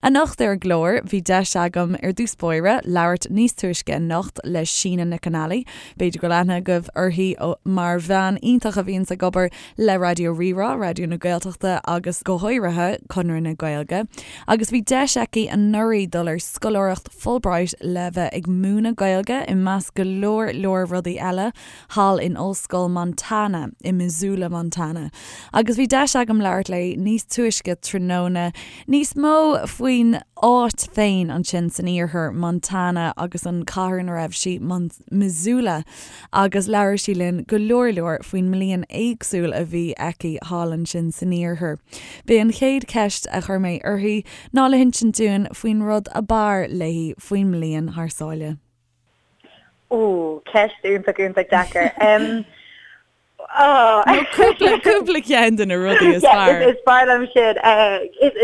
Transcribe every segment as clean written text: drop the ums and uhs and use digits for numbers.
Anocht ar an gclár, bhí deis agam, ar dtús báire, labhairt níos túisce anocht le Síne Nic an Ailí. B'fhéidir go bhfuil aithne agaibh uirthi mar bhean iontach a bhíonns ag obair le Raidió Rí-Rá, Raidió na Gaeltachta agus go háirithe Conradh na Gaeilge. Agus bhí deis aici anuraidh dul ar scoláireacht Fulbright le bheith ag múineadh Gaeilge, i measc go leor leor rudaí eile, thall in Ollscoil Montana i Missoula, Montana. Agus bhí deis agam labhairt léi níos túisce tráthnóna níos mó faoin áit féin ansin san iarthar, Montana, agus an cathair ina raibh sí, Missoula, agus labhair sí linn go leor leor faoin mbliain éagsúil a bhí aici thall ansin san iarthar. B'é an chéad cheist a chuir mé uirthi ná le hinsint dúinn faoin rud ab fhearr léi faoin mbliain thar sáile. Ó, ceist iontach iontach deacair. Nó cúpla, cúpla ceann de na rudaí is fearr. Is fearr liom sin.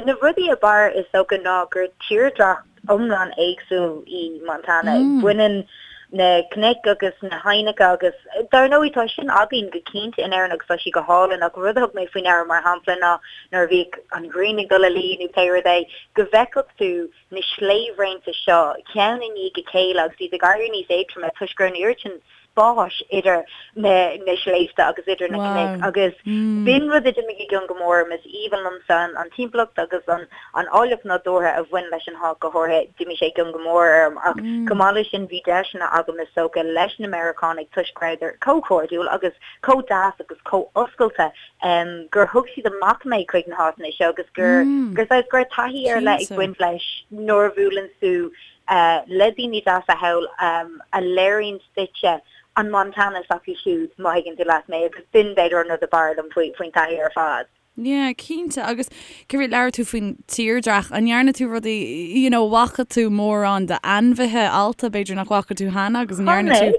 Na rudaí ab fhearr is dócha ná gur tírdhreach iomlán éagsúil í Montana. Baineann na cnoic agus na haibhneacha agus dar ndóigh tá sin againn go cinnte in Éirinn agus tá sí go hálainn ach rud a thug mé faoi ndeara mar shampla ná nuair a bhíodh an ghrian ag dul a luí nó pé rud é go bhfeicfeadh tú na sléibhraonta seo ceann i ndiaidh a chéile agus iad ag éirí níos éadtroime toisc go raibh an oiread sin spáis idir na sléibhte agus idir na cnoic agus b'in rud a d'imigh i gcion go mór orm. Is aoibhinn liomsa an timpeallacht agus an áilleacht nádúrtha a bhain leis an háit go háirithe, d'imigh sé i gcion go mór orm ach chomh maith leis sin bhí deiseanna agam is dócha leis na Meiriceánaigh toisc go rabhadar chomh cairdiúil agus chomh deas agus chomh oscailte gur thug siad amach mé chuig na háiteanna seo agus gur gur saghas go raibh taithí ar leith ag baint leis nuair a bhuaileann tú le daoine deasa thall a léiríonn duitse an Montana s'acu siúd, má thuigeann tú leat mé, agus b'in b'fhéidir an rud ab fhearr liom faoin taithí ar fad. Yeah, cinnte. Agus céard, labhair tú faoin tírdhreach, an ndearna tú rudaí, you know, bhfaca tú mórán d'ainmhithe allta, b'fhéidir nach bhfaca tú cheana agus an ndearna tú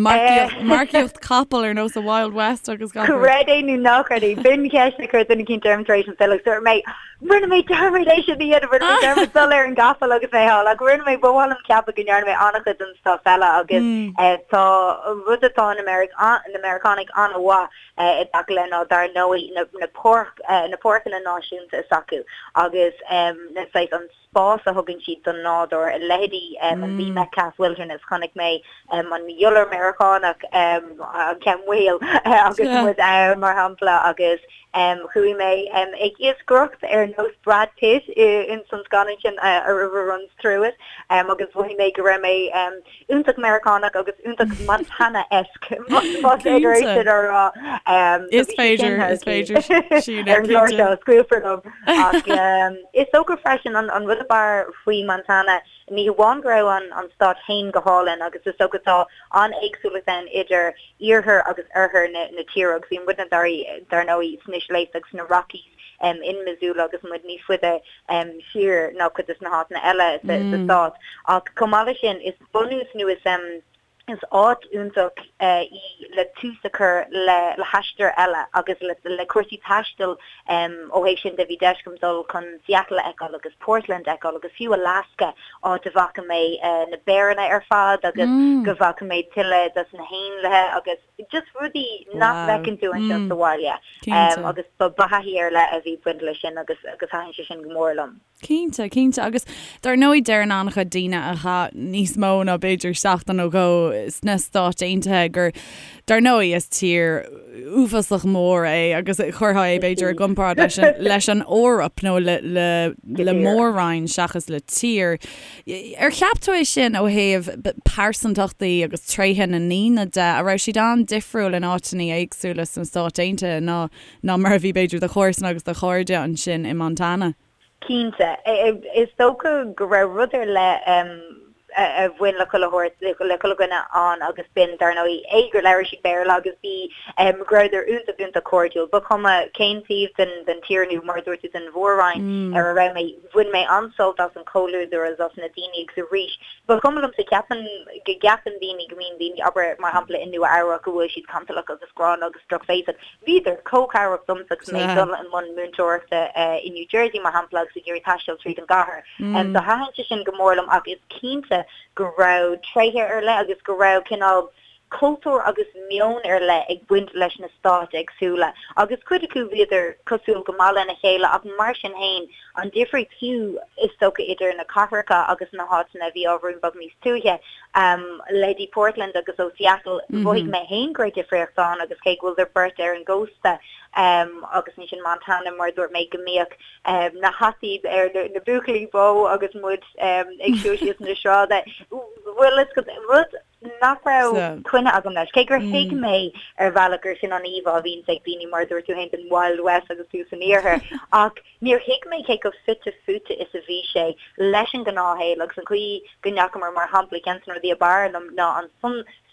marcaíocht, marcaíocht capall ar nós an Wild West agus gach rud? Creid é nó ná creid é, b'in ceist a chuir duine eicínt orm tar éis an filleadh, dúirt mé, rinne mé dearmad é sin a dhéanamh, rinne mé dearmad dul ar an gcapall agus mé thall, ach rinne mé, ba mhaith liom ceapadh go ndearna mé an-chuid den stuff eile agus tá rud atá na Meiriceánaigh an-mhaith i dtaca le ná dar ndóigh na páirc, na páirceanna náisiúnta s'acu agus na saghas an spás a thugann siad don nádúr, leithéidí an Lee Metcalf Wilderness, chonaic mé an iolar Meiriceánach, an ceann maol agus muid ann mar shampla agus chuaigh mé ag iascaireacht ar nós Brad Pitt ins an scannán sin A River Runs Through It agus mhothaigh mé go raibh mé iontach Meiriceánach agus iontach Montana-esque, más féidir é sin a rá. Is féidir, is féidir, Síne, Ar an gclár seo, scaoilfear liom. Ach is dócha freisin an rud ab fhearr faoi Montana, ní hamháin go raibh an stát féin go hálainn agus is dócha tá an-éagsúlacht ann idir iarthar agus oirthear na tíre agus bhí muidne dar ndóigh sna sléibhte agus sna Rockies in Missoula agus muid níos faide siar ná cuid de na háiteanna eile sa stát. Ach chomh maith leis sin, is bunús nó is is áit iontach í le tús a chur le le haistear eile agus le le cúrsaí taistil ó thaobh sin de. Bhí deis agam dul chun Seattle a fheiceáil agus Portland a fheiceáil agus fiú Alaska, áit a bhfaca mé na béaranna ar fad agus go bhfaca mé tuilleadh dos na héanlaithe agus just rudaí nach bhfeiceann tú anseo sa bhaile. Agus ba thaithí ar leith a bhí ag baint leis sin agus agus thaitin sé sin go mór liom. Cinnte, cinnte. Agus dar ndóigh deireann an-chuid daoine a chaith níos mó ná b'fhéidir seachtain nó dhó sna Stáit Aontaithe gur, dar ndóigh, is tír uafásach mór é agus chuirfeá é b'fhéidir i gcomparáid leis an, leis an Eoraip nó le, le, le mór-roinn seachas le tír. Ar cheap tú é sin ó thaobh pearsantachtaí agus tréithe na ndaoine de, an raibh siad an-difriúil in áiteanna éagsúla sna Stáit Aontaithe ná ná mar a bhí b'fhéidir do chomharsana agus do chairde ansin i Montana? Cinnte. Is dócha go raibh rud ar leith a bhain le chuile shórt, le chuile dhuine ann agus b'in, dar ndóigh, A, gur labhair siad Béarla agus B, go rabhadar iontach, iontach cairdiúil. Ba chuma cén taobh den tír nó, mar a dúirt tú, den mhór-roinn ar a raibh mé, bhain mé an-sult as an chomhluadar agus as na daoine agus arís, ba chuma liomsa, ceapann, go gceapann daoine go mbíonn daoine, abair, mar shampla i Nua-Eabhrac, go bhfuil siad cantalach agus gránna agus drochbhéasach. Bhíodar chomh cabhrach domsa agus mé ag dul i mbun múinteoireachta i New Jersey, mar shampla, agus ag iarraidh taisteal tríd an gcathair. So thaitin sé sin go mór liom ach is cinnte go raibh tréithe ar leith agus go raibh cineál. cultúr agus meon ar leith ag baint leis na stáit éagsúla agus cuid acu bhíodar cosúil go maith lena chéile ach mar sin fhéin an difríocht fiú is dócha idir na cathracha agus na háiteanna a bhí ábhairín beag níos tuaithe, leithéidí Portland agus ó Seattle, mhothaigh mé fhéin go raibh difríocht ann agus cé go bhfuileadar beirt ar an gcósta agus ansin Montana mar a dúirt mé go mbíodh na hataí ar na buachaillí bó agus muid ag siúl síos na sráide. Bhuel, is rud nach raibh coinne agam leis, cé gur thuig mé ar bhealach gur sin an íomhá a bhíonns ag daoine mar a dúirt tú féin den Wild West agus tú san iarthar, ach níor thuig mé cé chomh fite fuaite is a bhí sé leis an ngnáthshaol agus an chaoi go ndeachamar, mar shampla, ceann de na rudaí ab fhearr liom ná an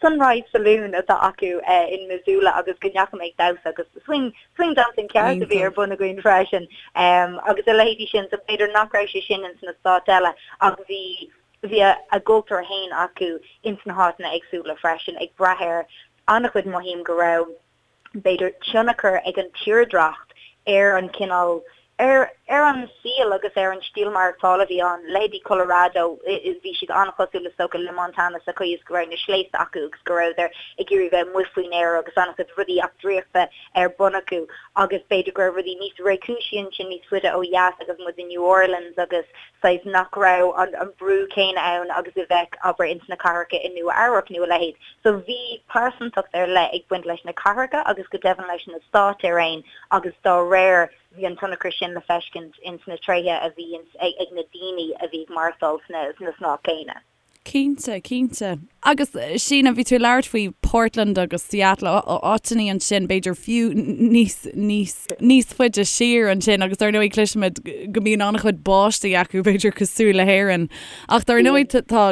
Sunrise Saloon atá acu in Missoula agus go ndeachaigh mé ag damhsa agus swing swing dancing ceart a bhí ar bun againn freisin agus a leithéidí sin so b'fhéidir nach raibh sé sin ins na stáit eile ach bhí bhí a gcultúr féin acu ins na háiteanna éagsúla freisin ag brath ar an-chuid mothaím go raibh b'fhéidir, tionchar ag an tírdhreacht ar an chineál, ar ar an saol agus ar an stíl maireachtála a bhí ann. Leithéidí Colorado, bhí siad an-chosúil is dócha le Montana sa chaoi is go raibh na sléibhte acu agus go rabhadar ag iarraidh bheith amuigh faoin aer agus an-chuid rudaí eachtraíochta ar bun acu agus b'fhéidir go raibh rudaí níos réchúisí ansin níos faide ó dheas agus muid i New Orleans agus saghas nach raibh an brú céanna ann agus a bheadh, abair, ins na cathracha i Nua Eabhrac nó a leithéid. So bhí pearsantacht ar leith ag baint leis na cathracha agus go deimhin leis na stáit ar aon agus dá réir bhí an tionchar sin le feiscint ins na tréithe a bhí ag na daoine a bhí ag maireachtáil sna stáit céanna. Cinnte, cinnte. Agus Síne, bhí tú ag labhairt faoi Portland agus Seattle, áiteanna ansin, b'fhéidir fiú níos, níos, níos faide siar ansin agus dar ndóigh cloisimid go mbíonn an-chuid báistí acu, b'fhéidir cosúil le hÉirinn. Ach dar ndóigh tá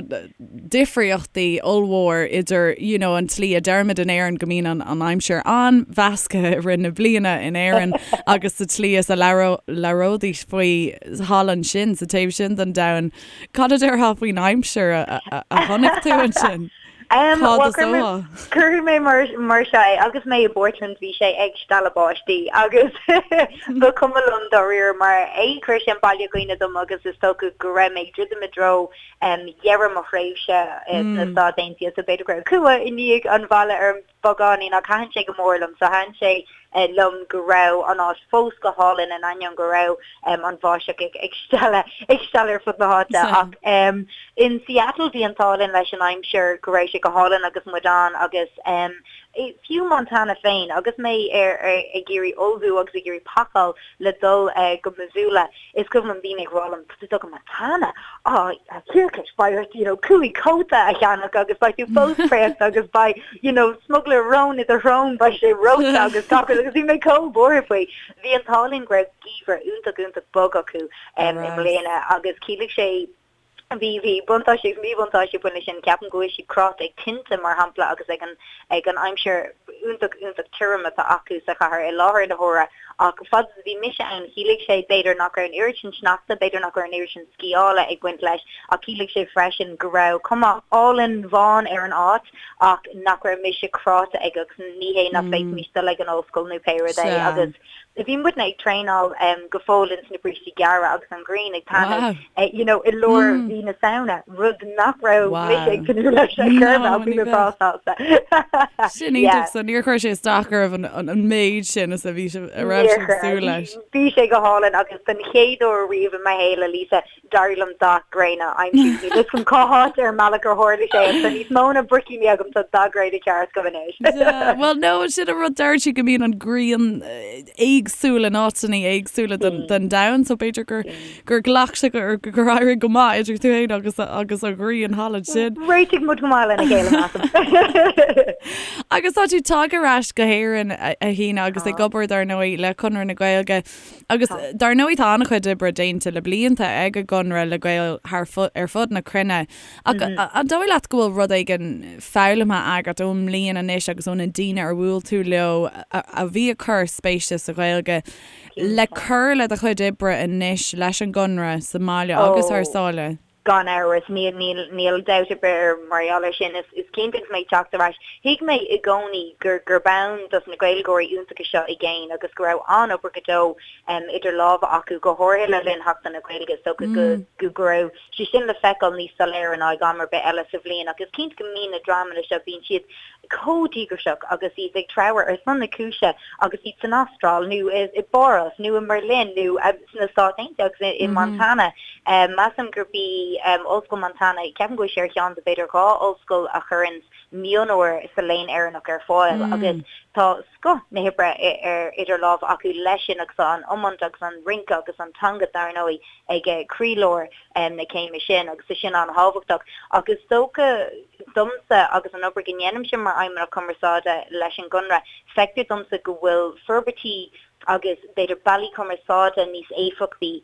difríochtaí ollmhór idir you know an tslí a deirimid in Éirinn go mbíonn an, an aimsir an-mheasctha i rith na bliana in Éirinn agus sa tslí is a labhróidís faoi thall ansin sa taobh sin den domhan. Cad a déarfá faoin aimsir a chonaic tú ansin? Cá dtosófá? Cuirfidh mé mar seo é, agus mé i bPortland bhí sé ag stealladh báistí agus ba chuma liom dáiríre mar a chuir sé an baile i gcuimhne dom agus is dócha go raibh mé ag druidim i dtreo dheireadh mo thréimhse sna Stáit Aontaithe so b'fhéidir go raibh cumha i ndiaidh an bhaile orm. beagáinín ach thaitin sé go mór liom. So thaitin sé liom go raibh an áit fós go hálainn in ainneoin go raibh an bháisteach ag stealladh ag stealladh ar fud na háite. Ach in Seattle bhí an t-ádh linn leis an aimsir go raibh sé go hálainn agus muid ann agus fiú Montana féin agus mé ar ag iarraidh ullmhú agus ag iarraidh pacáil le dul go Missoula Is cuimhin liom daoine ag rá liom, tá tú ag dul go Montana, á, a thiarcais, beidh ort, you know, 5 cóta a cheannach agus beidh tú fós préachta agus beidh, you know, smugairle róin i do shrón, beidh sé reoite agus gach rud agus bhí mé chomh buartha faoi. Bhí an t-ádh linn go raibh geimhreadh iontach, iontach bog acu i mbliana agus chiallaigh sé, Bhí, bhí buntáistí agus míbhuntáistí ag baint leis sin. Ceapaim go bhfuil siad cráite ag tinte, mar shampla, agus ag an, ag an aimsir iontach, iontach tirim atá acu sa chathair i láthair na huaire. Ach fad is a bhí mise ann, chiallaigh sé, b'fhéidir, nach raibh an oiread sin sneachta, b'fhéidir nach raibh an oiread sin sciála ag baint leis, ach chiallaigh sé freisin go raibh cuma álainn bhán ar an áit ach nach raibh mise cráite ag, agus ní hé nach bhféadfaimis dul ag an ollscoil nó pé rud é. Agus. Bhí muidne ag traenáil go fóill ins na brístí gearra agus an ghrian ag taitneamh you know i lár mhí na Samhna, rud nach raibh mise ag tnúth leis ar chor ar bith ach bhí mé breá sásta. Sin iontach, so níor chuir sé isteach oraibh an méid sin is a bhí sibh, a raibh sibh ag súil leis. Bhí sé go hálainn agus den chéad uair riamh i mo shaol, a Lisa, D'éirigh liom dath gréine a aimsiú. Níl fhios agam cá háit ar an mbealach ar tharla sé ach tá níos mó ná bricíní agam, tá dath gréine ceart agam anois. Bhuel no, sin an rud, deir siad go mbíonn an ghrian éagsúil in áiteanna éagsúla den domhan so b'fhéidir gur gur ghlac sé gur gur éirigh go maith idir tú féin agus agus an ghrian thall ansin. Réitigh muid go maith lena chéile measaim. Agus tá tú tagtha ar ais go hÉirinn a Shíne agus ag obair dar ndóigh le Conradh na Gaeilge. Agus dar ndóigh tá an-chuid oibre déanta le blianta ag an gConradh le Gaeil thar ar fud na cruinne. Ach an dóigh leat go bhfuil rud éigin foghlamtha agat ón mbliain anois agus ó na daoine ar bhuail tú leo a bhí ag cur spéise sa Ghaeilge le cur le do chuid oibre anois leis an gConradh sa mbaile agus thar sáile? Gan amhras, níl, níl, níl dabht ar bith ar mar gheall air sin. Is, is cinnte agus mé ag teacht ar ais, thuig mé i gcónaí gur, gurb ann dos na Gaeilgeoirí iontacha seo i gcéin agus go raibh an-obair go deo idir lámha acu, go háirithe le linn Sheachtain na Gaeilge. Is dócha go, go, go raibh sé sin le feiceáil níos soiléire ná ag am ar bith eile sa bhliain. Ach is cinnte go mbíonn na dreamanna seo, bíonn siad. chomh díograiseach agus iad ag treabhadh ar son na cúise agus iad san Astráil nó i bPáras nó i mBerlin nó sna Stáit Aontaithe agus i Montana. Measaim gurb í Ollscoil Montana, ceapaim go bhfuil sé ar cheann de b'fhéidir 2 ollscoil a chuireanns mionúir sa Léann Éireannach ar fáil agus tá scoth na hoibre ar idir lámha acu leis sin agus tá an iomáint agus an rince agus an teanga dar ndóigh ag croílár na céime sin agus tá sin an-thábhachtach. Ach is dócha domsa agus an obair go ndéanaimse mar Fheidhmeannach Cumarsáide leis an gConradh, feictear domsa go bhfuil forbairtí agus b'fhéidir bealaí cumarsáide níos éifeachtaí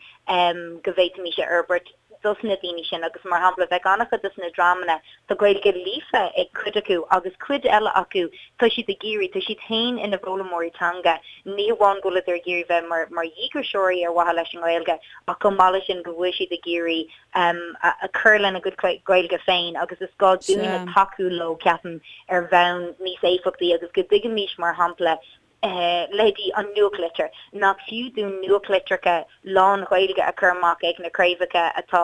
go bhféadfaimis a fhorbairt dos na daoine sin agus mar shampla bheadh an-chuid dos na dreamanna, tá Gaeilge líofa ag cuid acu agus cuid eile acu tá siad ag iarraidh, tá siad féin ina bhfoghlaimeoirí teanga, ní hamháin go bhfuileadar ag iarraidh bheith mar mar dhíograiseoirí ar mhaithe leis an nGaeilge ach chomh maith leis sin go bhfuil siad ag iarraidh cur lena gcuid Gaeilge féin agus is gá dúinne tacú leo ceapaim ar bhonn níos éifeachtaí agus go dtuigfimis mar shampla leithéidí an nuachtlitir, nach fiú dúinn nuachtlitreacha lán-Ghaeilge a chur amach ag na craobhacha atá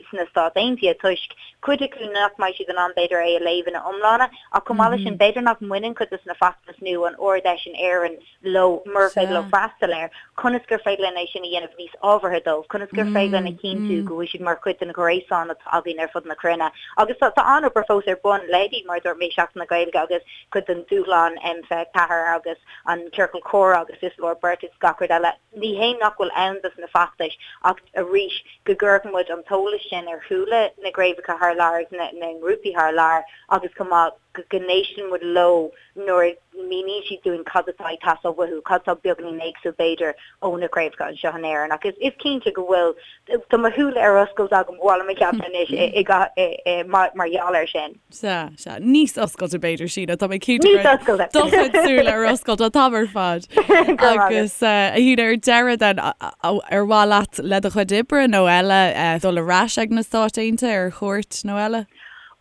sna Stáit Aontaithe toisc cuid acu nach mbeidh siad in ann b'fhéidir é a léamh ina iomláine ach chomh maith leis sin b'fhéidir nach mbaineann cuid de na feachtais nó an Ard-Fheis in Éirinn leo murar féidir leo freastal air, conas gur féidir linn é sin a dhéanamh níos ábhartha dóibh, conas gur féidir linn a chinntiú go bhfuil siad mar chuid den ghréasán atá againn ar fud na cruinne. Agus tá an-obair fós ar bun, leithéidí mar a dúirt mé Seachtain na Gaeilge agus cuid den dúshlán M24 agus an Ciorcal Comhrá agus Is Leor Beirt agus gach rud eile. Ní hé nach bhfuil ann dos na feachtais ach arís go gcuirfeadh muid an t-eolas sin ar shúile na gcraobhacha thar lear agus na ngrúpaí thar lear agus chomh maith go n-éisteann muid leo nuair a mhíníonn siad dúinn cad atá ag teastáil uathu, cad atá beagáinín éagsúil b'fhéidir ó na craobhacha anseo in Éirinn. Ach is cinnte go bhfuil, tá mo shúile ar oscailt agam, ba mhaith liom a cheapadh anois mar gheall air sin. Sea, sea. Níos oscailte b'fhéidir, Síne. Tá mé cinnte go raibh do chuid súile ar oscailt an t-am ar fad. Agus a Shíne, ar deireadh then, ar mhaith leat le do chuid oibre nó eile dul ar ais ag na Stáit Aontaithe ar chuairt nó eile?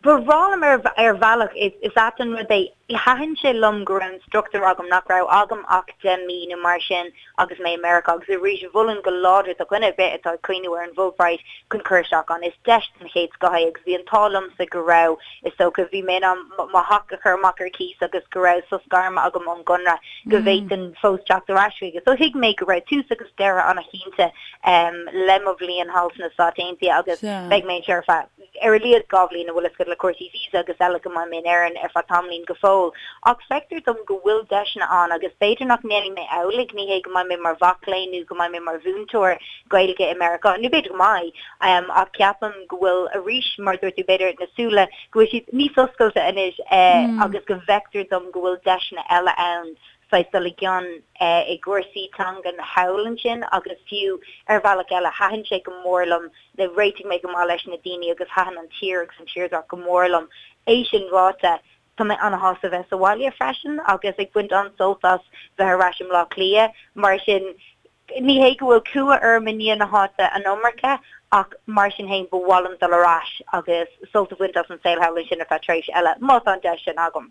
Ba bhreá liom ar bhealach, is ait an rud é, thaitin sé liom go raibh an struchtúr agam nach raibh agam ach 10 mí nó mar sin agus mé i Meiriceá agus arís mholfainn go láidir do dhuine ar bith atá ag cuimhniú ar an bhFulbright chun cur isteach ann. Is deis den chéad scoth é agus bhí an t-ádh liomsa go raibh, is dócha, bhí mé in ann mo theach a chur amach ar cíos agus go raibh sos gairme agam ón gConradh go bhféadfainn fós teacht ar ais chuige. So thuig mé go raibh tús agus deireadh an-chinnte le mo bhliain thall sna Stáit Aontaithe agus beidh mé anseo ar feadh ar a laghad 2 bhliain, an bhfuil a fhios agat le cúrsaí visa agus eile go mbeidh mé in Éirinn ar feadh tamaillín go fóill. Ach feictear dom go bhfuil deiseanna ann agus b'fhéidir nach ndéanfaidh mé amhlaidh, ní hé go mbeidh mé mar mhac léinn nó go mbeidh mé mar mhúinteoir Gaeilge i Meiriceá, nó b'fhéidir go mbeidh, ach ceapaim go bhfuil arís, mar a dúirt tú, b'fhéidir na súile, go bhfuil siad níos oscailte anois agus go bhfeictear dom go bhfuil deiseanna eile ann saghas dul i gcion i gcúrsaí teangan thall ansin agus fiú ar bhealach eile thaitin sé go mór liom réitigh mé go maith leis na daoine agus thaitin an tír agus an tírdhreach go mór liom. É sin ráite, tá mé an-shásta bheith sa bhaile freisin agus ag baint an-sult as bheith ar ais i mBleá Cliath. Mar sin, ní hé go bhfuil cumha orm i ndiaidh na háite an iomarca ach mar sin féin ba mhaith liom dul ar ais agus sult a bhaint as an saol thall ansin ar feadh tréimhse eile, má tá an deis sin agam.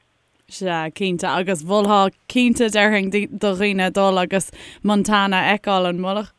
Sea, cinnte, agus mholfá cinnte, déarfainn, do dhaoine dul agus Montana a fheiceáil, an mholfadh?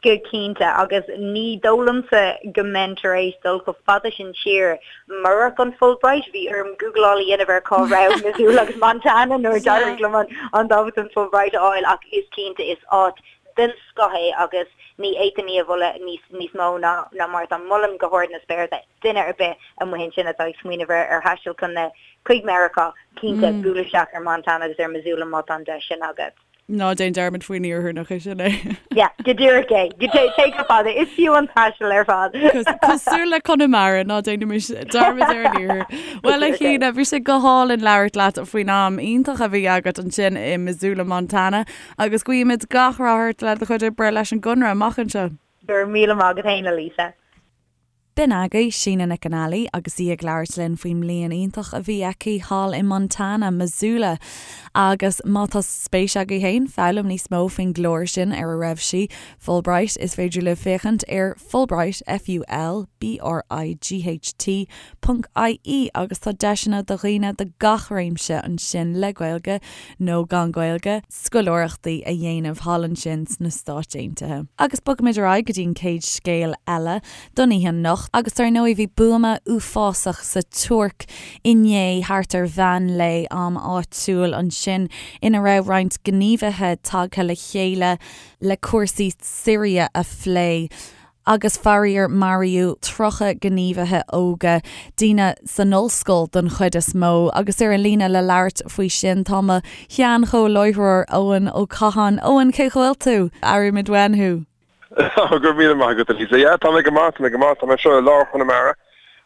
Go cinnte, agus ní dóigh liomsa go mbeinn tar éis dul chomh fada sin siar murach an Fulbright. Bhí orm gúgláil a dhéanamh ar cá raibh Missoula agus Montana nuair a d'éirigh liom an dámhachtain Fulbright a fháil ach is cinnte, is áit den scoth é agus ní fhéadfainn í a mholadh níos mó ná mar atá. Molaim go hard na spéire duine ar bith amuigh ansin atá ag smaoineamh ar thaisteal chun na, chuig Meiriceá, cinnte, buail isteach ar Montana agus ar Missoula má tá an deis sin agat. Ná déan dearmad faoin iarthar, nach é sin é? Yeah, go díreach é. Go dté, téigh chomh fada, is fiú an taisteal ar fad. Cosúil le Conamara, ná déanaimis dearmad ar an iarthar. Bhuel, a Shíne, bhí sé go hálainn labhairt leat faoin am iontach a bhí agat ansin i Missoula, Montana, agus guímid gach rath ort le do chuid oibre leis an gConradh amach anseo. Go raibh míle maith agat féin, a Lisa. B'in agaibh Síne Nic an Ailí agus í ag labhairt linn faoin mbliain iontach a bhí aici thall i Montana, Missoula. Agus má tá spéis agaibh féin foghlaim níos mó faoin gclár sin ar a raibh sí, Fulbright, is féidir libh féachaint ar Fulbright, F-U-L-B-R-I-G-H-T, ponc IE agus tá deiseanna do dhaoine de gach réimse ansin le Gaeilge nó gan Gaeilge, scoláireachtaí a dhéanamh thall ansin sna Stáit Aontaithe. Agus bogfaimid ar aghaidh go dtí an chéad scéal eile don oíche anocht. anocht agus dar ndóigh bhí buama uafásach sa Tuirc inné thart ar mheán lae am áitiúil ansin ina raibh roinnt gníomhaithe tagtha le chéile le cúrsaí Siria a phlé. Agus faraor maraíodh 30 gníomhaithe óga, daoine san ollscoil don chuid is mó. Agus ar an líne le labhairt faoi sin tá mo shean-chomhláithreoir Eoin Ó Catháin. Eoin, cén chaoi a bhfuil tú? Airímid uainn thú. Go raibh míle maith agat, a Lisa. Yeah, tá mé go maith, tá mé go maith. Tá mé anseo i lár Chonamara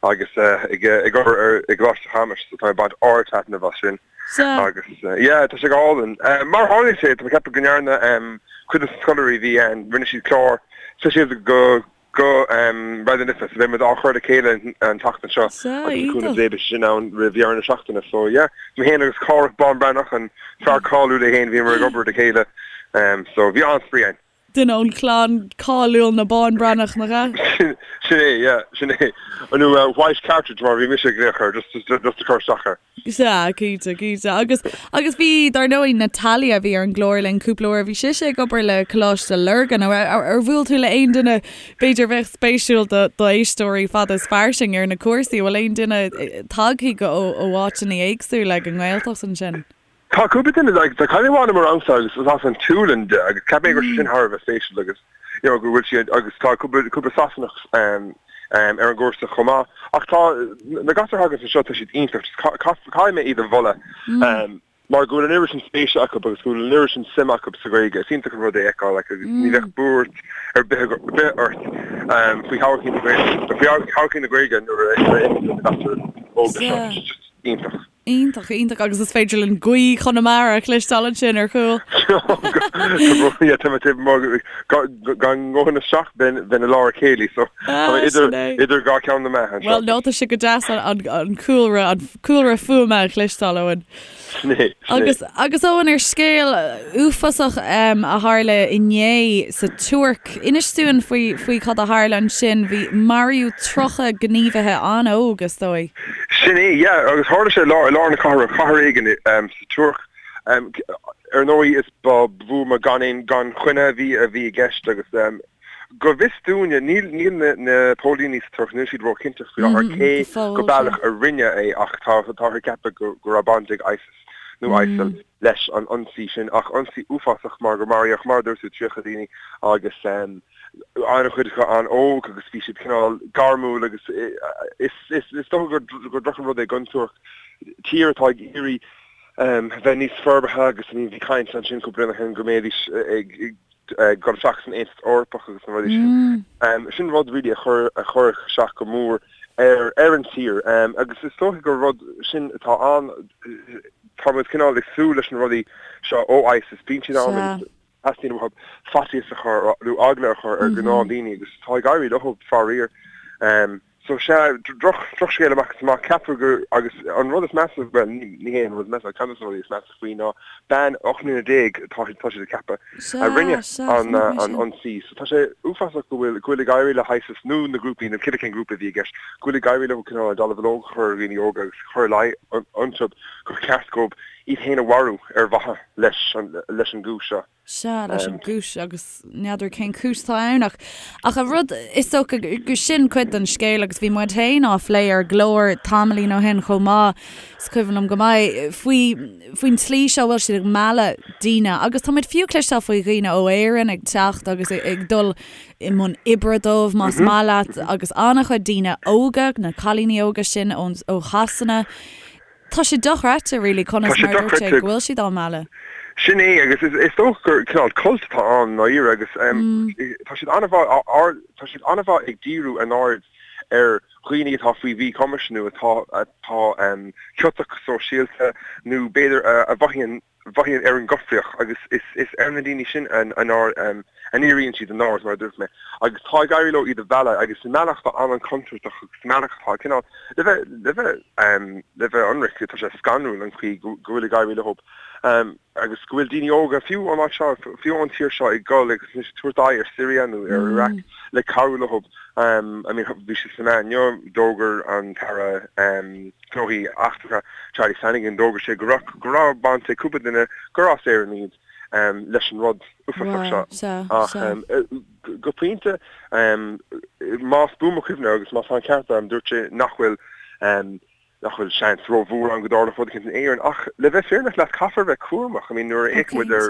agus ag obair ar i gColáiste Chamuis, so tá mé ag baint ard-taitneamh as sin. Sea. Agus yeah, tá sé go hálainn. Mar a tharlaíonn sé, tá mé ag ceapadh go ndearna cuid de na scoláirí a bhí ann, rinne siad clár speisialta go go Raidió na Life, so beidh muid á chur le chéile an tseachtain seo Sea, agus le cúnamh iontach. Dé beidh sé sin ann roimh dheireadh na seachtaine. So yeah, mé féin agus Cárthach Bán Breathnach, an fear cáiliúil é féin, bhíomar ag obair le chéile. So bhí an-spraoi ann. Duine ón chlann cáiliúil na Bán Breathnach, nach ea? Sin é, yeah, sin é. Nó White Cartridge mar a bhí mise ag glaoch air, just just a chur isteach air. Sea, cinnte, cinnte. Agus, agus bhí, dar ndóigh, Natalia a bhí ar an gclár linn cúpla uair, bhí sise ag obair le Coláiste Lurgan. Ar, ar, ar bhuail tú le aon duine, b'fhéidir, a bheadh spéisiúil do, do éisteoirí Fada is Fairsing ar na cúrsaí? An bhfuil aon duine tagtha go, ó, ó áiteanna éagsúla ag an nGaeltacht ansin? Tá cúpla duine, like, tá cailín amháin i mo rangsa agus is as an tSualainn di agus cheap mé go raibh sé sin thar a bheith spéisiúil agus, you know, go bhfuil sí agus tá cúpla, cúpla Sasanach um, um, ar an gcúrsa chomh maith. Ach tá, na gasúir a thagann anseo, tá siad iontach, just caithfidh mé iad a mholadh um, mar go bhfuil an oiread sin spéise acu agus go bhfuil an oiread sin suime acu sa Ghaeilge. Is iontach an rud é a fheiceáil like, agus ní bheadh buairt ar bith, ar bith ort um, faoi thodhchaí na Gaeilge, faoi thodhchaí na Gaeilge nuair a fheiceann tú na gasúir óga seo. Tá sé just iontach. Iontach, iontach agus is féidir linn gaoth Chonamara a chloisteáil ansin ar chúl. Tá mé taobh amuigh gan ngabhann isteach bheinn i lár a céilí so tá mé idir idir dhá cheann na meá anseo. Bhuel nó tá sé go deas an cúlra an cúlra fuaime a chloisteáil Eoin. Sin é, sin é. Agus agus Eoin ar scéal uafásach a tharla inné sa Tuirc, inis dúinn faoi faoi cad a tharla ansin. Bhí maraíodh 30 gníomhaithe an-óg is dóigh. Sin é, yeah, agus tharla sé i lár, i lár na cathrach, cathair éigin sa Tuirc. Ar ndóigh is ba bhuama gan aon, gan choinne a bhí, a bhí i gceist agus go bhfios dúinne, níl, níl na, na póilíní sa Tuirc, níl siad róchinnte faoi láthair cé go baileach a rinne é ach tá, táthar ag ceapadh go, go raibh baint ag ISIS nó ISIL leis an ionsaí sin ach ionsaí uafásach mar gur maraíodh, mar a dúirt tú, 30 daoine agus an-chuid acu an-óg agus bhí siad cineál gairmiúil agus is dócha gur droch an rud é don Tuirc, tír atá ag iarraidh bheith níos forbartha agus bhí caint ansin cúpla bliain ó shin go mbeidís ag dul isteach san Aontas Eorpach agus na rudaí sin. Sin rud really a chuir a chuirfeadh isteach go mór ar ar an tír agus is dócha gur rud sin atá ann, tá muid cineál ag súil leis na rudaí seo ó ISIS, bíonn siad ann agus Teastaíonn uathu faitíos a chur nó eagla a chur ar ghnáthdaoine agus tá ag éirí leo, faraor. So sea, droch, drochscéal amach is amach. Ceaptar gur, agus an rud is measa, bhuel, ní hé an rud is measa, ach ceann de na rudaí is measa faoi ná bean 18 mbliana, tá, tá siad ag ceapadh, a rinne an, an ionsaí. So tá sé uafásach go bhfuil, go bhfuil ag éirí le hISIS nó na grúpaí, nó cibé cén grúpa a bhí i gceist, go bhfuil ag éirí leo cineál an dallamullóg a chur ar dhaoine óga agus cur ina luí iontu gur cheart dóibh iad féin a mharú ar mhaithe leis an leis an gcúis seo. Sea, leis an gcúis agus n'fheadar cén chúis atá ann ach ach an rud is dócha gur sin cuid den scéal agus bhí muid féin á phlé ar an gclár tamaillín ó shin chomh maith, is cuimhin liom go maith, faoi faoin tslí seo a bhfuil siad ag mealladh daoine agus tá muid fiú cloisteáil faoi dhaoine ó Éirinn ag teacht agus ag dul i mbun oibre dóibh más maith leat agus an-chuid daoine óga, na cailíní óga sin ón ó Shasana. Tá sé dochreidte really conas mar a dúirt sé go bhfuil siad á mealladh. Sin é agus is dócha gur cineál cult atá ann i ndáiríre agus tá siad an-mhaith tá siad an-mhaith ag díriú a n-aird ar dhaoine atá faoi mhíchumais nó atá atá ciotach go sóisialta nó b'fhéidir a mhothaíonn mhothaíonn ar an gcoimhthíoch agus is ar na daoine sin a ndíríonn siad a n-aird, mar a dúirt mé, agus tá ag éirí leo iad a mhealladh agus i mbealach atá an-an-chontúirteach agus i mbealach atá cineál, le bheith, le bheith, le bheith ionraic, tá sé scanrúil an chaoi go bhfuil ag éirí leo agus go bhfuil daoine óga, fiú ón áit seo, fiú ón tír seo ag dul agus anois ag tabhairt aghaidh ar Syria nó ar Iraq le cabhrú leo. I mean bhí sé sna meáin inniu, d'fhógair an tAire, Gnóthaí Eachtracha, Charlie Flanagan, d'fhógair sé go raibh, go raibh baint ag cúpla duine gur as Éirinn iad. leis an rud uafásach seo. Ach go pointe, más buan mo chuimhne agus má tá an ceart agam, dúirt sé nach bhfuil nach bhfuil seans rómhór ann go dtarlódh rud éicint in Éirinn. Ach le bheith fírinneach leat, caithfear a bheith cúramach. I mean, nuair a fhéachann muid ar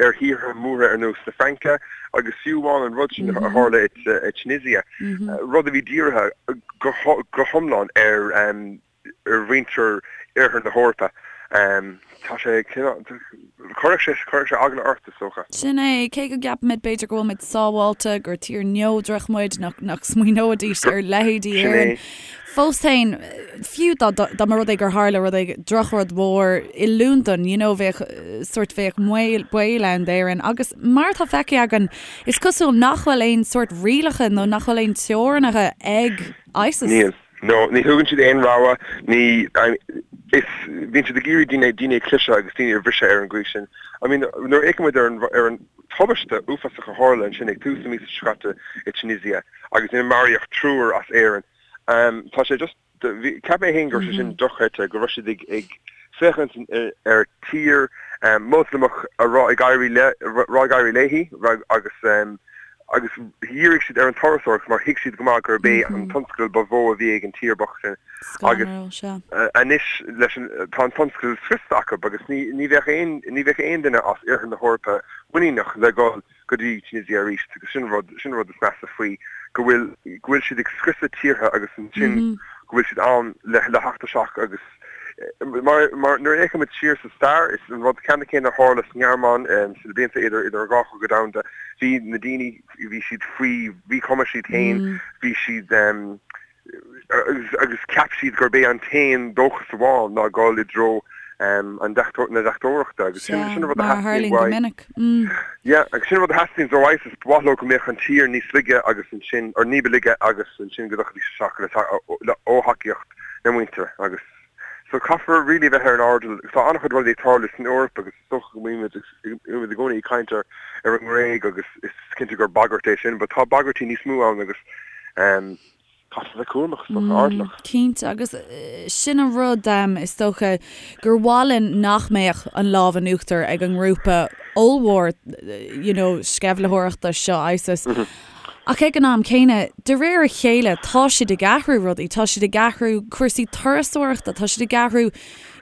ar thíortha móra ar nós na Fraince agus fiú amháin an rud sin a tharla i Tunisia, rud a bhí dírithe go hiomlán ar ar mhuintir Oirthear na hEorpa. Tá sé cineál, chuirfeadh sé, chuirfeadh sé eagla ort, is dócha. Sin é, cé go gceapaimid b'fhéidir go bhfuil muid sábháilte, gur tír neodrach muid, nach, nach smaoineoidís ar leithéidí Sin é. Éireann. Fós féin, fiú dá, dá mba rud é gur tharla rud éigin, drochrud mhór i Londain, you know, bheadh sórt, bheadh baol, baol ann d'Éirinn. Agus mar atá feicthe againn, is cosúil nach bhfuil aon sórt rialacha nó nach bhfuil aon teorainneacha ag ISIS. Níl. No, ní thugann siad aon rogha, ní, is, bíonn siad ag iarraidh daoine, daoine a chliseadh agus daoine a bhriseadh ar an gcaoi sin. I mean, nuair a fhéachann muid ar an, ar an tubaiste uafásach a tharla ansin ag tús na míosa seo caite i Tunisia agus ina maraíodh triúr as Éirinn, tá sé just, bhí, cheap mé féin go raibh sé sin dochreidte, go raibh siad ag, ag féachaint ar tír Moslamach a raibh ag éirí le, raibh ag éirí léi agus, agus dhírigh siad ar an turasóireacht mar thuig siad go maith gurb é an tionscal ba mhó a bhí ag an tír bocht sin agus anois leis an tá an tionscal scriosta acu agus ní ní bheadh aon ní bheadh aon duine as oirthear na hEorpa muiníneach le dhul go dtí Tunisia arís agus sin rud sin rud is measa faoi go bhfuil go bhfuil siad ag scriosadh tíortha agus ansin go bhfuil siad ann le le theacht isteach agus Mar nuair a fhéachann muid siar sa stair, is an rud ceannann céanna a tharla sa nGearmáin sna blianta idir idir an dhá chogadh domhanda. Bhí na daoine, bhí siad faoi mhíchumas iad féin, bhí siad agus cheap siad gurb é an t-aon dóchas amháin ná dul i dtreo an na deachtóireachta agus sin sin an rud a theastaíonn uaidh. Yeah, agus sin an rud a theastaíonn ó ISIS, ba mhaith leo go mbeadh an tír níos laige agus ansin, or ní ba laige agus ansin go dtiocfaidís isteach le ó thacaíocht na muintire agus so caithfear really bheith ar an airdeall. Tá an-chuid rudaí ag tarlú san Eoraip agus is dócha go mbímid i gcónaí ag caint ar ar an nGréig agus is cinnte gur bagairt é sin but tá bagairtí níos mó ann agus um, caithfear bheith cúramach is dócha airdeallach. Cinnte agus sin an rud um, is dócha gur mhaith linn nach mbeadh an lámh in uachtar ag an ngrúpa ollmhór you know, sceimhlitheoireachta seo ISIS. Mm -hmm. Ach ag an am céanna, de réir a chéile, tá siad ag athrú rudaí, tá siad ag athrú cúrsaí turasóireachta, tá siad ag athrú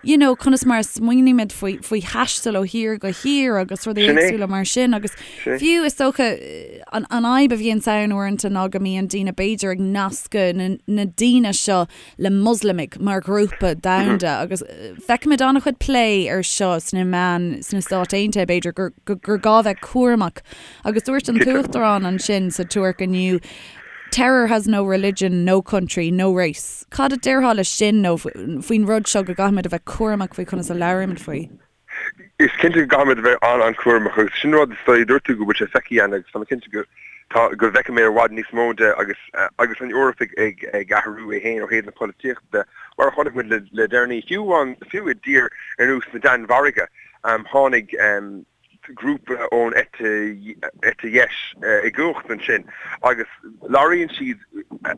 you know, conas mar a smaoinímid faoi, faoi thaisteal ó thír go thír agus rudaí Sin é. éagsúla mar sin agus Sin é. fiú is dócha an, an fhadhb a bhíonns ann uaireanta ná go mbíonn daoine b'fhéidir ag nascadh na, na daoine seo le Moslamaigh mar ghrúpa domhanda agus feicimid an-chuid plé ar seo sna meáin sna Stáit Aontaithe b'fhéidir gur, gur, gur gá bheith cúramach Agus dúirt an tUachtarán ansin sa Tuirc inniu, Terror has no religion, no country, no race. Cad a déarfá leis sin nó faoin rud seo go gcaithfimid a bheith cúramach faoi conas a labhraímid faoi? Is cinnte go gcaithfimid a bheith an-an-chúramach agus sin rud is dóigh, dúirt tú go bhfuil sé feicthe againn agus tá mé cinnte go tá go bhfeicfidh mé i bhfad níos mó de agus agus an Eoraip ag ag ag athrú é féin ó thaobh na polaitíochta de mar a chonaic muid le le deireanaí fiú amháin fiú i dtír ar nós na Danmhairge tháinig grúpa ón eite eite dheis i gcumhacht ansin agus labhraíonn siad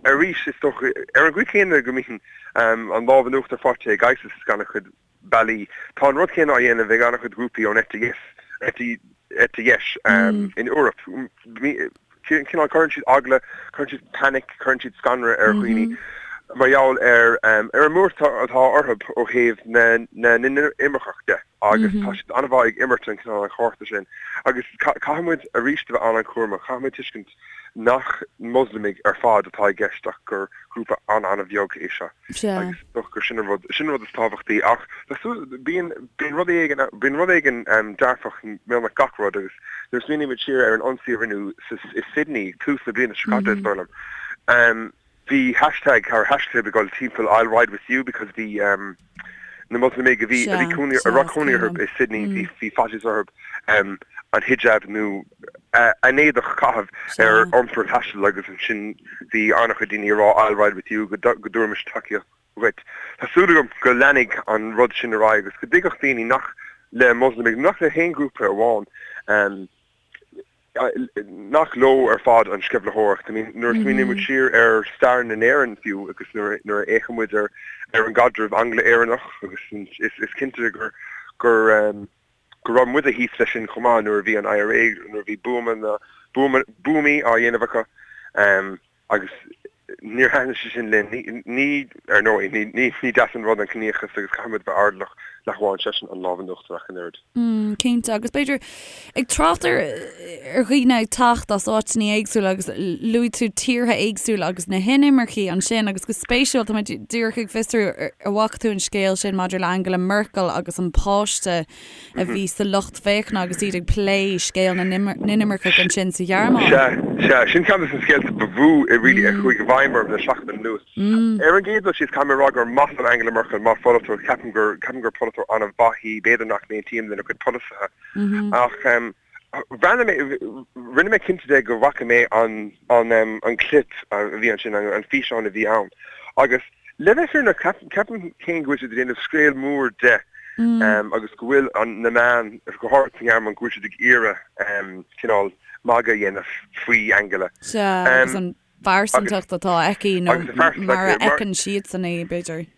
arís is dócha ar an gcaoi chéanna go mbíonn an lámh in uachtar faighte ag ISIS ag an-chuid bealaí. Tá an rud céanna á dhéanamh ag an-chuid grúpaí ón eite dheis eite eite dheis in Eoraip. Cineál cuireann siad eagla, cuireann siad panic, cuireann siad scanradh ar dhaoine mar gheall ar ar an mbuairt atá orthu ó thaobh na na n-inimirceach de. agus tá siad an-mhaith ag imirt an cineál an chárta sin agus caithfidh muid arís a bheith an-an-chúramach, caithfidh muid tuiscint nach Moslamaigh ar fad atá i gceist ach gur grúpa an-an-bheag é seo agus is dócha gur sin an rud, sin an rud is tábhachtaí ach tá súil, bíonn, bíonn rud éigin, bíonn rud éigin dearfach i mbeagnach gach rud agus nuair a smaoinímid siar ar an ionsaí a rinneadh sa, i Sydney tús na bliana seo caite is dóigh liom, Bhí hashtag or haischlib ag dul timpeall I'll ride with you because bhí na Moslamaigh a bhí a bhí cónaí a raibh cónaí orthu i Sydney bhí bhí faitíos orthu an hijab nó a n-éadach a chaitheamh ar iompar taistil agus ansin bhí an-chuid daoine ag rá I'll ride with you go go dtabharfaimis tacaíocht dhuit. Tá súil agam go leanfaidh an rud sin ar aghaidh agus go dtuigfeadh daoine nach le Moslamaigh nach le haon ghrúpa amháin nach leo ar fad an sceimhlitheoireacht. I mean, nuair a smaoiníonn muid siar ar stair na nÉireann fiú agus nuair nuair a fhéachann muid ar ar an gcaidreamh Angla-Éireannach agus is is cinnte gur gur um, go raibh muide thíos leis sin chomh maith nuair a bhí an IRA, nuair a bhí buama na, buama, buamaí á dhéanamh acu agus níor thaitin sé sin linn. Ní, ní, ar ndóigh, ní, ní, ní deas an rud an ciníochas agus caithfidh muid bheith airdeallach nach bhfaigheann seisean an lámh in uachtar ach an oiread. Mm, cinnte, agus b'fhéidir ag trácht ar ar dhaoine ag teacht as áiteanna éagsúla agus luaigh tú tíortha éagsúla agus na hinimircigh ansin agus go spéisiúil tá mé díreach ag fiosrú an bhfaca tú an scéal sin maidir le Angela Merkel agus an páiste a bhí sa lucht féachana agus iad ag plé scéal na n-inimirceach ansin sa Ghearmáin. Sea, sea, sin ceann de na scéalta ba mhó really a chuaigh i bhfeidhm orm le seachtain anuas. Ar an gcéad dul síos, caithfidh mé a rá gur maith liom Angela Merkel mar pholaiteoir, ceapaim gur, ceapaim gur polaiteoir an-mhaith í, b'fhéidir nach n-aontaím lena cuid polasaithe. Ach bhreathnaigh mé, rinne mé cinnte de go bhfaca mé an, an, an clip a bhí ansin, an físeán a bhí ann. Agus le bheith fírinneach, ceapaim féin go bhfuil siad ag déanamh scéal mór de agus go bhfuil an, na meáin, go háirithe sa nGearmáin, go bhfuil siad ag iarraidh cineál magadh a dhéanamh faoi Angela. Sea, agus an phearsantacht atá aici nó mar a fheiceann siadsan í, b'fhéidir.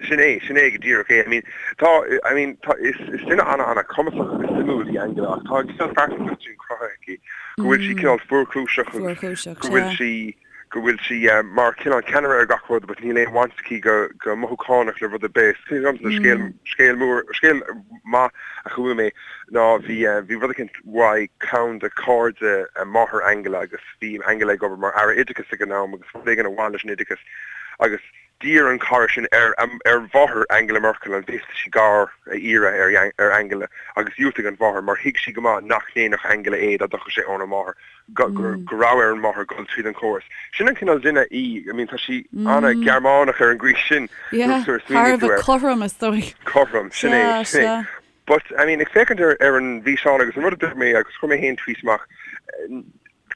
Sin é, sin é go díreach é. I mean, tá, I mean, tá, is, is duine ana-ana-chumasach agus suimiúil í Angela ach tá an cineál pearsantacht sin cruthaithe aici go bhfuil sí cineál fuarchúiseach agus go bhfuil sí, go bhfuil sí mar cineál ceannaire ar gach rud but níl aon bhaint aici go, go mothúchánach le rud ar bith. Is cuimhin liomsa scéal, scéal mór, scéal maith a chuala mé ná bhí, bhí rud eicínt uaidh ceann de chairde máthair Angela agus Bhí Angela ag obair mar Aire Oideachais ag an am agus rud éigin a bhain leis an oideachas agus d'iarr an cara sin ar ar mháthair Angela Merkel an bhféadfadh sí gar a iarraidh ar ar Angela agus dhiúltaigh an mháthair mar thuig sí go maith nach ndéanfadh Angela é dá dtiocfadh sé óna máthair, go go raibh ar an máthair dul tríd an chóras. Sin an cineál duine í, I mean tá sí ana-Ghearmánach ar an gcaoi sin Yeah, thar a bheith cothrom is dóigh. Cothrom, sin é, sin é. But, I mean, ag féachaint ar ar an bhfíseán agus an rud a dúirt mé agus chuir mé féin tweet amach,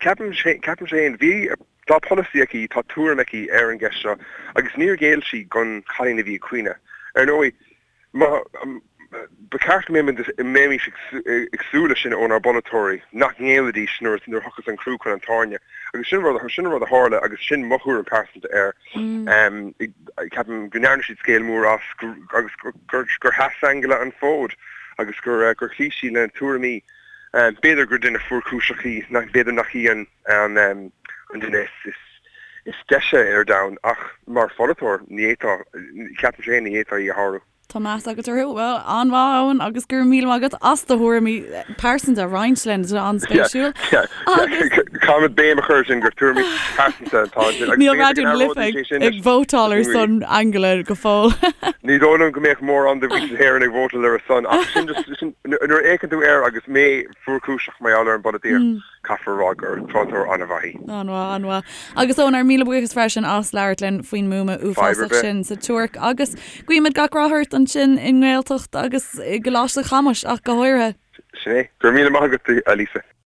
ceapaim, ceapaim féin, bhí, tá polasaí aici, tá tuairim aici ar an gceist seo agus níor ghéill sí don chailín a bhí ag caoineadh. Ar ndóigh, má, ba cheart go mbeimis ag súil leis sin ónár bpolaiteoirí, nach ngéillfidís nuair nuair a thiocfas an crú chun an tairne. Agus sin rud, sin an rud a tharla agus sin mo thuairim pearsanta air. Ceapaim go ndearna siad scéal mór as agus gur sheas Angela an fód agus gur chloígh sí lena tuairimí. B'fhéidir gur duine fuarchúiseach í, b'fhéidir nach í an duine is deise ar domhan ach mar pholaiteoir ní fhéadfá, ceapaim féin, ní fhéadfá í a shárú. Tá meas agat uirthi. Bhuel, an-mhaith, Eoin, agus go raibh míle maith agat as do thuairimí pearsanta a roinnt linn. Tá sé an-spéisiúil. Agus. Caithfimid béim a chur sin gur tuairimí pearsanta atá ansin. Níl Raidió na Life ag vótáil ar son Angela go fóill. Ní dóigh liom go mbeadh mórán de mhuintir na hÉireann ag vótáil ar a son ach sin just, sin, nuair a fhéachann tú air agus mé fuarchúiseach mar gheall ar an bpolaitíocht, Caithfear a rá gur polaiteoir an-mhaith í. An-mhaith, an-mhaith. Agus Eoin, ár míle buíochas freisin as labhairt linn faoin mbuama uafásach sin sa Tuirc agus guímid gach rath ort ansin i nGaeltacht agus i gColáiste Chamuis ach go háirithe. Sin é. Go raibh míle maith agat, a Lisa.